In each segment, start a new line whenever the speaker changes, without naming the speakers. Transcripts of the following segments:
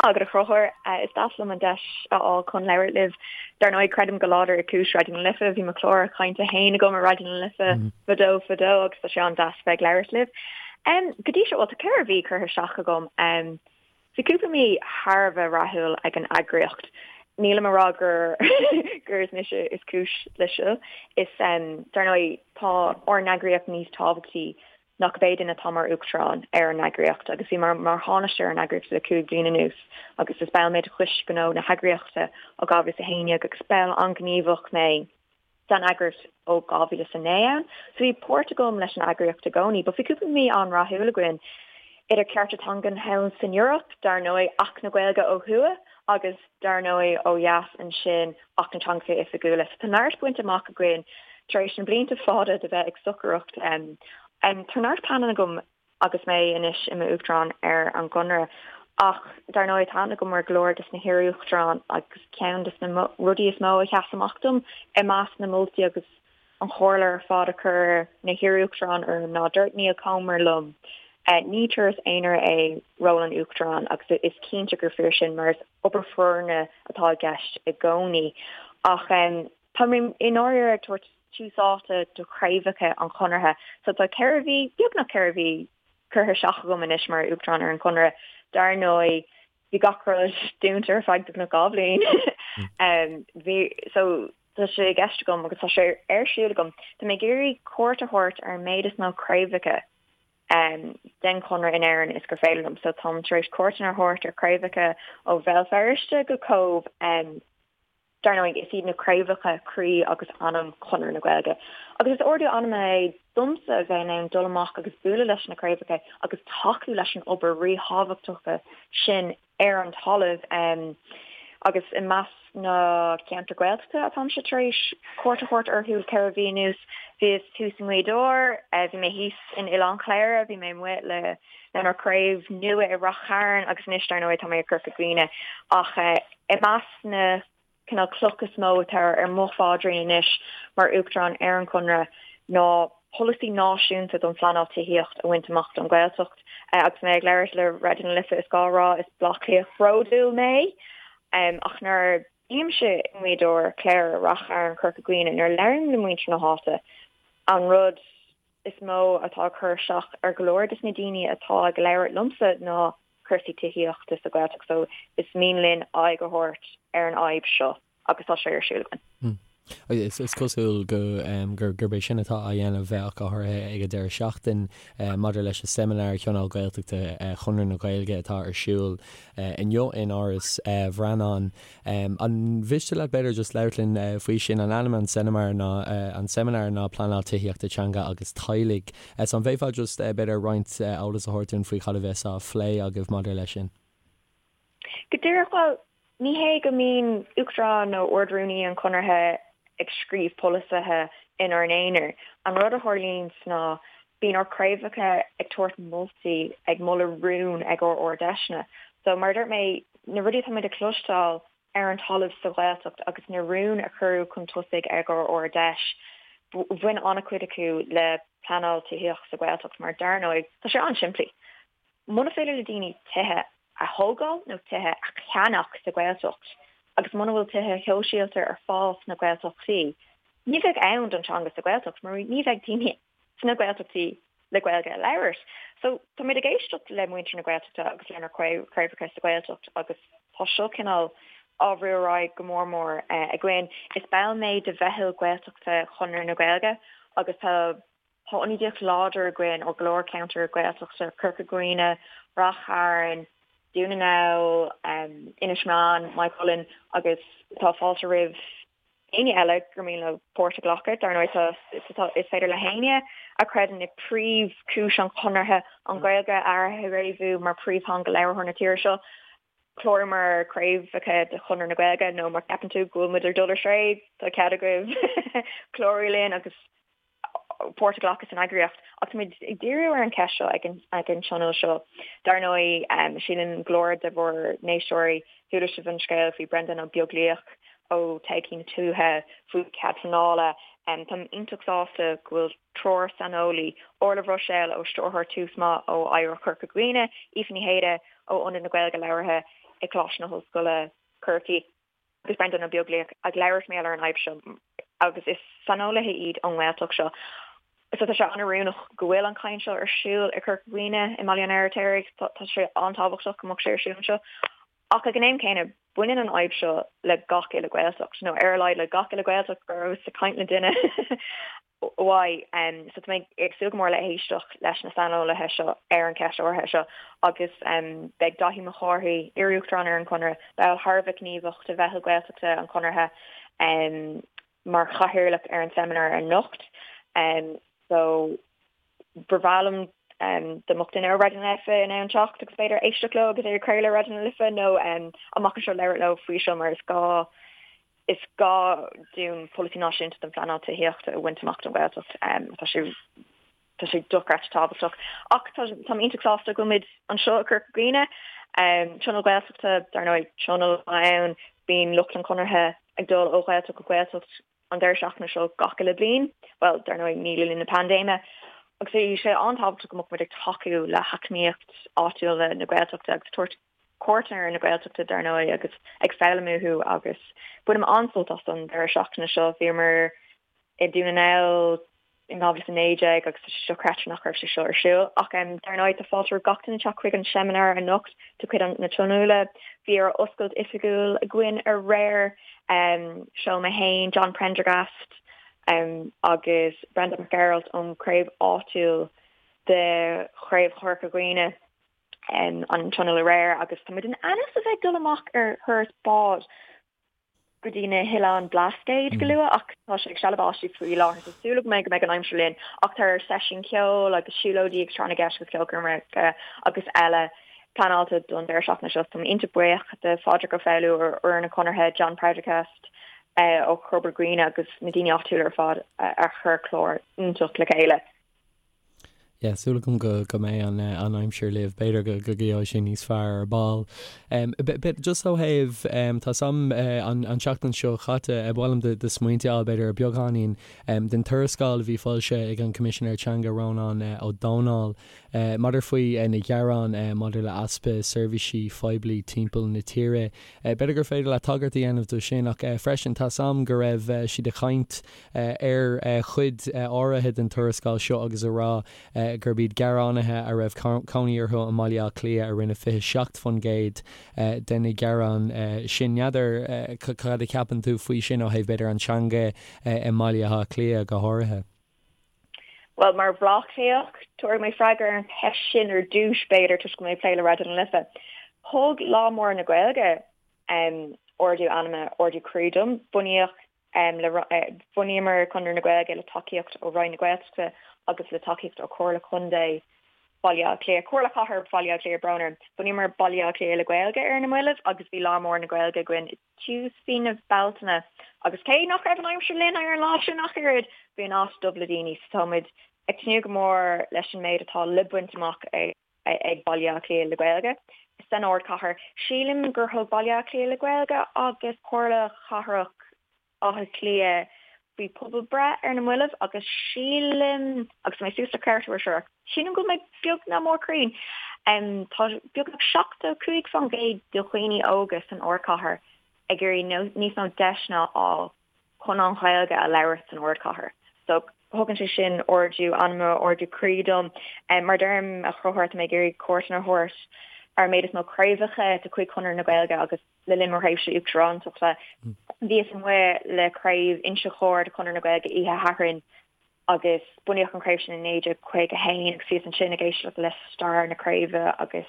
raibh míle maith agat a Chonchúir. Is deas liom an deis a fháil chun labhairt libh. Dar ndóigh, creidim go láidir i gcúis Raidió na Life. Bhí mo chlár cainte féin agam ar Raidió na Life fadó fadó agus tá sé an-deas bheith ag labhairt libh. Go dtí seo, bhuel, tá 4 mhí curtha isteach agam. Bhí cúpla mí thar a bheith rathúil ag an eagraíocht. Nílim ag rá gur gur is mise is cúis leis seo. Is, dar ndóigh, tá ár n-eagraíocht níos tábhachtaí ná cibé duine atá mar Uachtarán ar an eagraíocht agus bhí mé mar Thánaiste ar an eagraíocht le 5 bliana anuas agus is ball mé de Choiste Gnó na heagraíochta ó 2011 agus ball an-ghníomhach mé den eagraíocht ó 2009 ann. So bhí páirt agam leis an eagraíocht i gcónaí but bhí cúpla mí an-rathúil againn idir cearta teangan thall san Eoraip, dar ndóigh, Acht na Gaeilge ó thuaidh agus dar ndóigh, ó dheas ansin, Acht na dTeangacha Oifigiúla. So tá neart bainte amach againn tar éis na blianta fada de bheith ag stocaireacht. Tá neart pleananna agam agus mé anois i m'Uachtarán ar an gConradh. Ach dar ndóigh, tá aithne agam ar go leor des na hiar-Uachtaráin agus ceann des na rudaí is mó a sheas amach dom i measc na moltaí agus an chomhairle ar fad a chuir na hiar-Uachtaráin orm ná dúirt Niall Comer liom, Ní turas aonair é ról an Uachtaráin agus is cinnte gur fíor sin mar is obair foirne atá i gceist i gcónaí. Ach tá mé i ndáiríre ag tabhairt tús áite do chraobhacha an Chonartha. So tá 4 mhí, beagnach 4 mhí, curtha isteach agam anois mar Uachtarán ar an Chonradh. Dar ndóigh, bhí gach rud dúnta ar feadh beagnach 2 bhliain. Bhí, so tá sé i gceist agam agus tá sé ar siúl agam, tá mé ag iarraidh cuairt a thabhairt ar an méid is mó craobhacha den Chonradh in Éirinn is gur féidir liom. So táim tar éis cuairteanna a thabhairt ar chraobhacha ó Bhéal Feirste go Cóbh. Dar ndóigh, is iad na craobhacha croí agus anam Chonradh na Gaeilge. Agus is ardú anama é domsa a bheith in ann dul amach agus bualadh leis na craobhacha agus tacú leis an obair ríthábhachtach sin ar an talamh. Agus i measc na ceantar Gaeltachta atáimse tar éis cuairt a thabhairt orthu le 4 mhí anuas, bhíos thuas i nGaoth Dobhair, bhí mé thíos in Oileán Chléire, bhí mé amuigh le lenár craobh nua i Rath Chairn agus anois dar ndóigh tá mé i gCorca Dhuibhne. Ach i measc na cineál cloch is mó atá ar mo phaidrín anois mar Uachtarán ar an Chonradh ná polasaí náisiúnta don phleanáil tithíocht a bhaint amach don Ghaeltacht. Agus mé ag labhairt le Raidió na Life is gá a rá is Bleá Cliathach bródúil mé ach nuair a bhímse i nGaoth Dobhair, Cléire, Rath Chairn, Corca Dhuibhne, nuair a labhraím le muintir na háite an rud is mó atá ag cur isteach ar go leor des na daoine atá ag labhairt liomsa ná cúrsaí tithíochta sa Ghaeltacht so is mian linn aghaidh a thabhairt ar an fhadhb seo agus tá sé ar siúl
againn. Is cosúil go gurb é sin atá á dhéanamh ach go háirithe ag an deireadh seachtain maidir leis an seimineár Thionól Gaeltachta Chonradh na Gaeilge atá ar siúl inniu in Áras Bhreanáin. An mhiste leat b'fhéidir just labhairt linn faoi sin? An ainm an seimineár ná an seimineár ná Pleanáil Tithíochta Teanga agus Teaghlaigh. So an bhféadfá just b'fhéidir roinnt eolas a thabhairt dúinn faoi cad a bheas á phlé agaibh maidir leis sin?
Go díreach, bhuel, ní hé go mbíonn Uachtarán nó Ard-Rúnaí an Chonartha ag scríobh polasaithe inár n-aonar. An rud a tharlaíonns ná bíonn ár craobhacha ag tabhairt moltaí, ag moladh rún ag ár Ard-Fheiseanna. So, mar a dúirt mé, na rudaí atá muid ag cloisteáil ar an talamh sa Ghaeltacht agus na rúin a cuireadh chun tosaigh ag ár Ard-Fheis, bhain an-chuid acu le pleanáil tithíochta sa Ghaeltacht mar dar ndóigh, tá sé an-simplí. Muna féidir le daoine tithe a thógáil nó tithe a cheannach sa Ghaeltacht agus muna bhfuil tithe shóisialta ar fáil sna Gaeltachtaí, ní bheidh ann don teanga sa Ghaeltacht mar ní bheidh daoine sna Gaeltachtaí le Gaeilge a labhairt. So táimid ag éisteacht le muintir na Gaeltachta agus lenár craobhacha sa Ghaeltacht agus tá seo cineál á bhrú ar aghaidh go mór mór againn. Is ball mé de Mheitheal Gaeltachta Chonradh na Gaeilge agus tá tá ionadaíocht láidir againn ó go leor ceantar Gaeltachta, Corca Dhuibhne, Rath Chairn, Dún na nGall, Inis Meáin, Maigh Cuilinn agus tá fáilte roimh éinne eile gur mian leo páirt a ghlacadh. Dar ndóigh, tá, is féidir le héinne a chreideann i príomhchúis an Chonartha, an Ghaeilge a fhréamhú mar phríomhtheanga labhartha na tíre seo, clárú mar chraobhacha de Chonradh na Gaeilge nó má cheapann tú go bhfuil muid ag dul ar strae, tá cead agaibh clárú linn agus páirt a ghlacadh san eagraíocht. Ach táimid ag díriú ar an cheist seo ag an tionól seo. Dar ndóigh, sílim go leor de bhur n-éisteoirí, chuala sibh an scéal faoi Brendan Ó Beaglaoich ó Todhchaí na Tuaithe faoi chead pleanála. Táim iontach sásta go bhfuil triúr saineolaí, Orla Bhruiséil ó Stiúrthóir Tús Maith ó Oidhreacht Chorca Dhuibhne, Aoife Ní Shéaghdha ó Ionad na Gaeilge Labhartha. ag Coláiste na hOllscoile Corcaigh agus Breandán Ó Beaglaoich ag labhairt mar gheall ar an fhadhb seo agus is saineolaithe iad ón nGaeltacht seo. So tá sé an-oiriúnach go bhfuil an chaint seo ar siúl i Corca Dhuibhne i mBaile an Fheirtéaraigh. Tá sé an-tábhachtach go mbeadh sé ar siúl anseo. Ach ag an am céanna, baineann an fhadhb seo le gach uile Ghaeltacht, nó ar a laghad le gach uile Ghaeltacht go rabhas ag caint le duine uaidh. So tá mé ag súil go mór le héisteacht leis na saineolaithe seo ar an cheist áirithe seo agus beidh Dáithí Mac Cárthaigh, iar-uachtarán ar an Chonradh, ball thar a bheith gníomhach de Mheitheal Gaeltachta an Chonartha, mar chathaoirleach ar an seimineár anocht. So ba bhreá liom dá mbeadh duine ó Raidió na Life in ann teacht agus b'fhéidir éisteacht leo agus é a chraoladh ar Raidió na Life nó amach anseo labhairt leo faoi seo mar is gá is gá dúinn polasaí náisiúnta don phleanáil tithíochta a bhaint amach don Ghaeltacht. Tá sé Tá sé dochreidte tábhachtach. Ach táim iontach sásta go bhfuil muid anseo i Corca Dhuibhne. Tionól Gaeltachta, dar ndóigh, tionól atá ann. Bíonn lucht an Chonartha ag dul ó Ghaeltacht go Gaeltacht an deireadh seachtaine seo gach uile bliain. Bhuel, dar ndóigh, ní le linn na paindéime. Agus bhí sé an-tábhachtach go mbeadh muid ag tacú le heacnamaíocht áitiúil na Gaeltachta agus tabhairt cuairteanna ar na Gaeltachta, dar ndóigh, agus ag foghlaim uathu agus bainim an-sult as an deireadh seachtaine seo. Bhíomar i Dún na nGall in 2019 agus tá sé dochreidte nach raibh sé seo ar siúl. Ach dar ndóigh tá fáilte roimh gach duine teacht chuig an seimineár anocht de chuid na Tionóla. Bhí ár oscailt oifigiúil againn aréir. Seo mé féin, John Prendergast agus Breandán Mac Gearailt ón chraobh áitiúil de Chraobh Chorca Dhuibhne an tionól aréir agus tá muid in ainm is a bheith ag dul amach ar thuras bád go dtí na hOileáin Blascaod go luath ach tá sé ag stealladh báistí faoi láthair so súil agam go mbeidh an aimsir linn ach tá seisiún ceoil agus siúlóidí agus tráth na gceist agus ceolchoirmeacha agus eile pleanáilte don deireadh seachtaine seo. Tá mé iontach buíoch de Phádraig Ó Foghlú ó fhoireann an Chonartha, John Prendergast ó Chorca Dhuibhne agus na daoine áitiúla ar fad a chuir clár iontach le chéile.
Yeah, súil agam go go mbeidh an an aimsir libh, b'fhéidir go go gheobhaidh sé níos fearr ar ball. But just ó thaobh, tá 's a'm an an tseachtain seo chaite, ba mhaith liom do do smaointe a fháil b'fhéidir ar beagáinín den tuarascáil a bhí foilsithe ag an Coimisinéir Teanga Rónán Ó Domhnaill maidir faoi na gearáin maidir le easpa seirbhísí phoiblí timpeall na tíre. B'fhéidir gur féidir leat tagairt a dhéanamh do sin ach freisin tá 's a'm go raibh siad ag caint ar chuid áirithe den tuarascáil seo agus a rá gurb iad gearánaithe a raibh cónaí orthu i mBaile Átha Cliath a rinne 27% de na gearáin sin. N'fheadar cad a cheapann tú faoi sin ó thaobh b'fhéidir an teanga i mBaile Átha Cliath go háirithe?
Bhuel, mar Bhaile Átha Cliathach, tabharfaidh mé freagra ar an cheist sin ar dtús, b'fhéidir, toisc go bhfuil mé ag plé le Raidió na Life. Thug Lá Mór na Gaeilge ardú anama, ardú croí dom. Bunaíodh Bhunaíomar Conradh na Gaeilge le tacaíocht ó Roinn na Gaeltachta agus le tacaíocht ó Chomhairle Contae Bhaile Átha Cliath, Comhairle Chathair Bhaile Átha Cliath, brón orm. Bhunaíomar Baile Átha Cliath le Gaeilge ar na mallaibh agus bhí Lá Mór na Gaeilge againn i dtús mhí na Bealtaine agus cé nach raibh an aimsir linn ar an lá sin ach oiread, bhí an áit dubh le daoine so tá muid ag tnúth go mór leis an méid atá le baint amach ag ag Baile Átha Cliath le Gaeilge san ardchathair. Sílim gur thug Baile Átha Cliath le Gaeilge agus Comhairle Chathrach Átha Cliath faoi pobalbhreith ar na mallaibh agus sílim, agus tá mé suas le ceartú air seo, sílim go bhfuil mé beag nach mór cruinn, tá beagnach 75% de dhaoine óga san ardchathair ag iarraidh níos mó deiseanna a fháil chun an Ghaeilge a labhairt san ardchathair. So thugann sé sin ardú anama, ardú croí dom. Mar deirim, a Chonchúir, tá mé ag iarraidh cuairteanna a thabhairt ar an méid is mó craobhacha de chuid Chonradh na Gaeilge agus le linn mo thréimhse uachtarántachta bhíos amuigh le craobh Inse Chór de Chonradh na Gaeilge oíche Shathairn agus bunaíodh an chraobh sin i 1951 agus bhíos ansin ag éisteacht le stair na craoibhe agus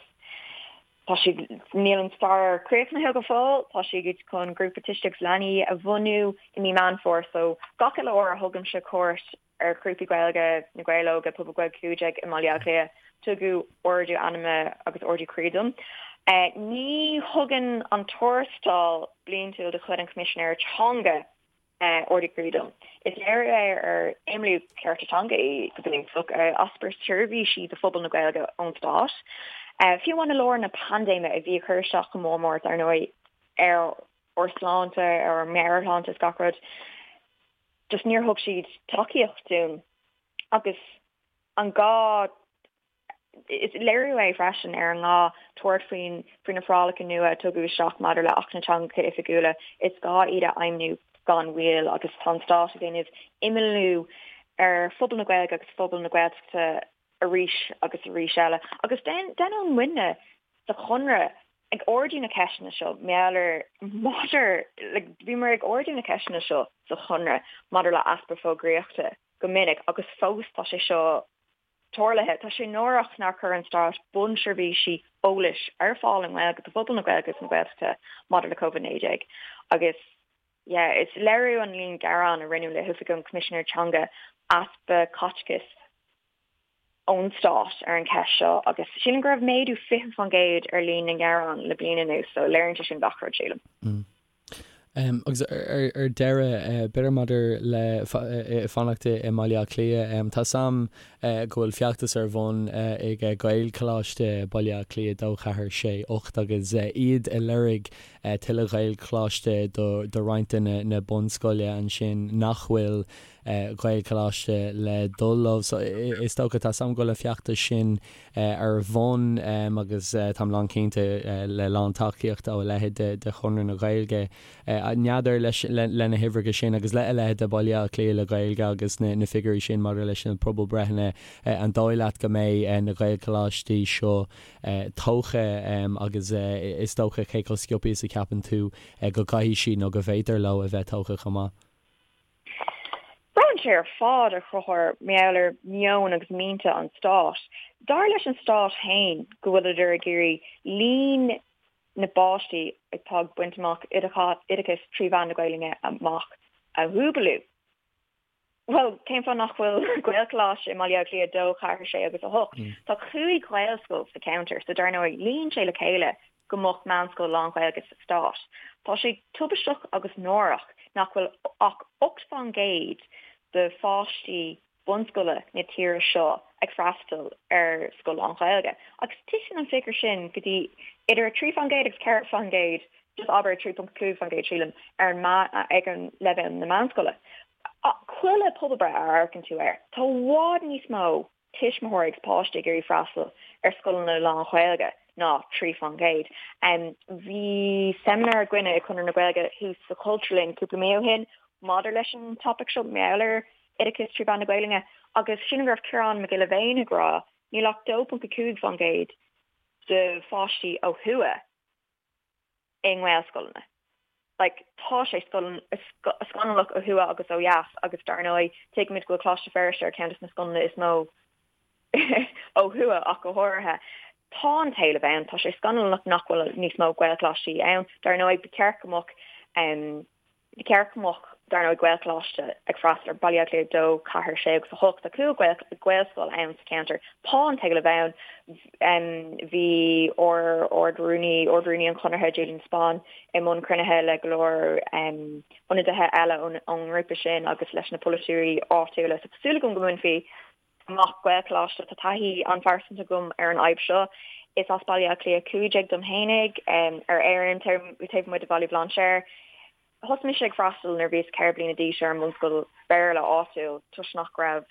tá siad, níl an stair críochnaithe go fóill, tá siad chun grúpa tuistí agus leanaí a bhunú i mí Meán Fómhair so gach uile uair a thugaimse cuairt ar ghrúpaí Gaeilge, Na Gaeil Óga, Pobal Gaeilge 15 i mBaile Átha Cliath, tugadh ardú anama agus ardú croí dom. Ní thugann an tuarascáil bliantúil de chuid an Choimisinéara Teanga ardú croí dom. Is léiriú é ar imeallú cearta teanga í go bunúsach, easpa seirbhísí do phobal na Gaeilge ón stát. Fiú amháin i lár na paindéime a bhí ag cur isteach go mór mór, dar ndóigh, ar ár sláinte, ar ár meabhairshláinte is gach rud, just níor thug siad tacaíocht dúinn. Agus an gá. Is léiriú é freisin ar an ngá tabhairt faoin faoi na forálacha nua a tugadh isteach maidir le Acht na dTeangacha Oifigiúla, is gá iad a fheidhmiú gan mhoill agus tá an Stát ag déanamh imeallú ar phobal na Gaeilge agus phobal na Gaeltachta arís agus arís eile. Agus déanann muidne sa Chonradh ag ardú na ceisteanna seo, maidir ar maidir like bhíomar ag ardú na ceisteanna seo sa Chonradh maidir le easpa fógraíochta go minic agus fós tá sé seo tarlaithe. Tá sé náireach nár chuir an Stát bunseirbhísí eolais ar fáil i nGaeilge do phobal na Gaeilge agus na Gaeltachta maidir le Covid-19 agus yeah, is léiriú an líon gearán a rinneadh le hOifig an Choimisinéir Teanga easpa caiteachais ón Stát ar an cheist seo agus sílim go raibh méadú 20% ar líon na ngearán le bliain anuas so léiríonn sé sin gach rud sílim.
Agus ar deireadh, b'fhéidir maidir le fanacht i mBaile Átha Cliath, tá 's a'm go bhfuil feachtas ar bun ag Gaelcholáiste Baile Átha Cliath 2, 4, 6, 8 agus iad ag lorg tuilleadh Ghaelcholáiste do roinnt de na bunscoile ansin nach bhfuil Ghaelcholáiste le dul leo. So is dócha, tá 's a'm go bhfuil an feachtas sin ar bun agus táim lán cinnte le lán tacaíocht ó a leithéid de Chonradh na Gaeilge. N'fheadar leis le na huimhreacha sin agus le a leithéid de Baile Átha Cliath le Gaeilge agus na figiúirí sin maidir leis na pobalbreitheanna, an dóigh leat go mbeidh na Gaelcholáistí seo tógtha agus is dócha cé chomh sciobtha is a cheapann tú go gcaithfidh siad nó go bhféadtar leo a bheith tógtha chomh maith?
Braitheann sé ar fad, a Chonchúir, mar gheall ar mheon agus mianta an stáit. Dar leis an stát féin go bhfuileadar ag iarraidh líon na bpáistí atá ag baint amach oideachas trí mheán na Gaelainne amach a dhúbalú. Bhuel, cén fáth nach bhfuil Gaelcholáiste i mBaile Átha Cliath 2, 4, 6 agus 8? Tá 5 Ghaelscoil sa cheantar so dar ndóigh luíonn sé le chéile go mbeadh meánscoil lán-Ghaeilge sa stát. Tá sé tubaisteach agus náireach nach bhfuil ach 8 fán gcéad de pháistí bunscoile na tíre seo ag freastal ar scoil lán-Ghaeilge agus titeann an figiúr sin go dtí idir 3 fán gcéad agus 4 fán gcéad just abair 3.5 fán gcéad sílim ar an ag an leibhéal na meánscoile. Chuile pobalbreith a amharcann tú air, tá i bhfad níos mó tuismitheoirí agus páistí ag iarraidh freastal ar scoileanna lán-Ghaeilge ná 3 fán gcéad. Bhí seimineár againne i Conradh na Gaeilge thuas sa Chultúrlann cúpla mí ó shin maidir leis an topaic seo, mar gheall ar oideachas trí mheán na Gaelainne agus sílim go raibh Ciarán Mac Giolla Bhéin ag rá níl ach 2.5 fán gcéad de pháistí ó thuaidh i nGaelscoileanna. Like, tá sé scannalach ó thuaidh agus ó dheas agus dar ndóigh tuigimid go bhfuil Coláiste Feirste ar ceann de na scoileanna is mó ó thuaidh ach go háirithe. Tá an t-éileamh ann, tá sé scannalach nach bhfuil níos mó Gaelcholáistí ann. Dar ndóigh ba cheart go mbeadh Ba cheart go mbeadh, dar ndóigh, Gaelcholáiste ag freastal ar Baile Átha Cliath 2, 4, 6 agus 8. Tá 5 Ghaelscoil ann sa cheantar. Tá an t-éileamh ann. Bhí ár Ard-Rúnaí, Ard-Rúnaí an Chonartha, Julian de Spáinn, i mbun cruinnithe le go leor ionadaithe eile ón ngrúpa sin agus leis na polaiteoirí áitiúla. So tá súil agam go mbainfí amach Gaelcholáiste. Tá taithí an-phearsanta agam ar an fhadhb seo. Is as Baile Átha Cliath 15 dom fhéinig, ar Éirinn, taobh amuigh de Bhaile Bhlainséir. Thosaigh mise ag freastal nuair a bhíos 4 bliana d'aois ar an mbunscoil Béarla áitiúil toisc nach raibh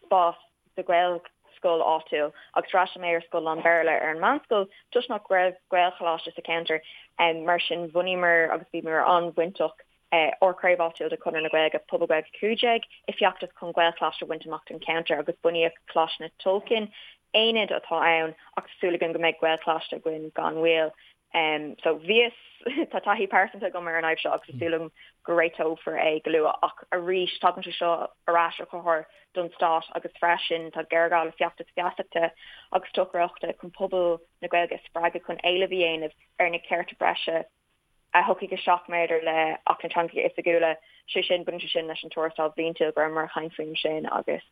spás sa Ghaelscoil áitiúil agus d'fhreastail mé ar scoil lán-Bhéarla ar an meánscoil toisc nach raibh Gaelcholáiste sa cheantar. Mar sin bhunaíomar agus bhíomar an-bhainteach ár craobh áitiúil de Chonradh na Gaeilge, Pobal Gaeilge 15, i bhfeachtas chun Gaelcholáiste a bhaint amach don cheantar agus bunaíodh Coláiste na Tulchann, aonad atá ann ach tá súil againn go mbeidh Gaelcholáiste againn gan mhoill. So bhíos, tá taithí pearsanta agam ar an fhadhb seo agus tá súil agam go réiteofar é go luath ach arís tagann sé seo ar ais a Chonchúir don stát agus freisin tá géarghá le feachtas feasachta agus stocaireachta chun pobal na Gaeilge a spreagadh chun éileamh a dhéanamh ar na cearta breise a thiocfaidh isteach maidir le Acht na dTeangacha Oifigiúla, sé sin, baineann sé sin leis an tuarascáil bhliantúil go rabhamar ag caint faoin sin agus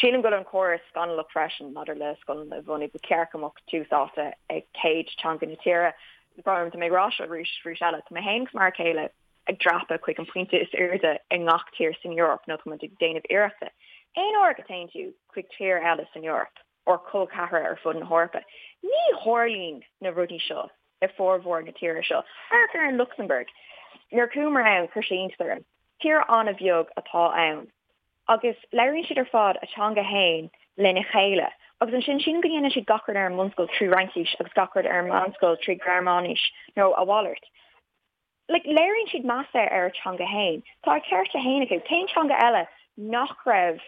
sílim go bhfuil an córas scannalach freisin maidir le scoileanna a bhunú. Ba cheart go mbeadh tús áite ag céad teanga na tíre. Brón orm, tá mé ag rá seo arís arís eile, tá mé féin agus m'fhear céile ag dreapadh chuig an pointe is airde i ngach tír san Eoraip nó tá muid ag déanamh iarrachta. Aon uair go dtéann tú chuig tír eile san Eoraip, or col ceathracha ar fud na hEorpa. Ní tharlaíonn na rudaí seo i formhór na tíortha seo. Amharc ar an Lucsamburg. Nuair a chuamar ann, chuir sé iontas orm. Tír an-bheag atá ann. Agus labhraíonn siad ar fad a teanga fhéin. lena chéile. Agus ansin sílim go ndéanann siad gach rud ar an mbunscoil trí Fhraincis agus gach rud ar an meánscoil trí Ghearmáinis nó a mhalairt. Like, léiríonn siad meas ar a teanga fhéin. Tá a cearta fhéin acu. Cén teanga eile nach raibh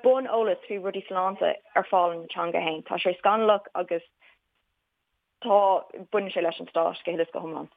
bun-eolas faoi rudaí sláinte ar fáil ina teanga fhéin? Tá sé scannalach agus tá, baineann sé leis an stát go huile is go hiomlán.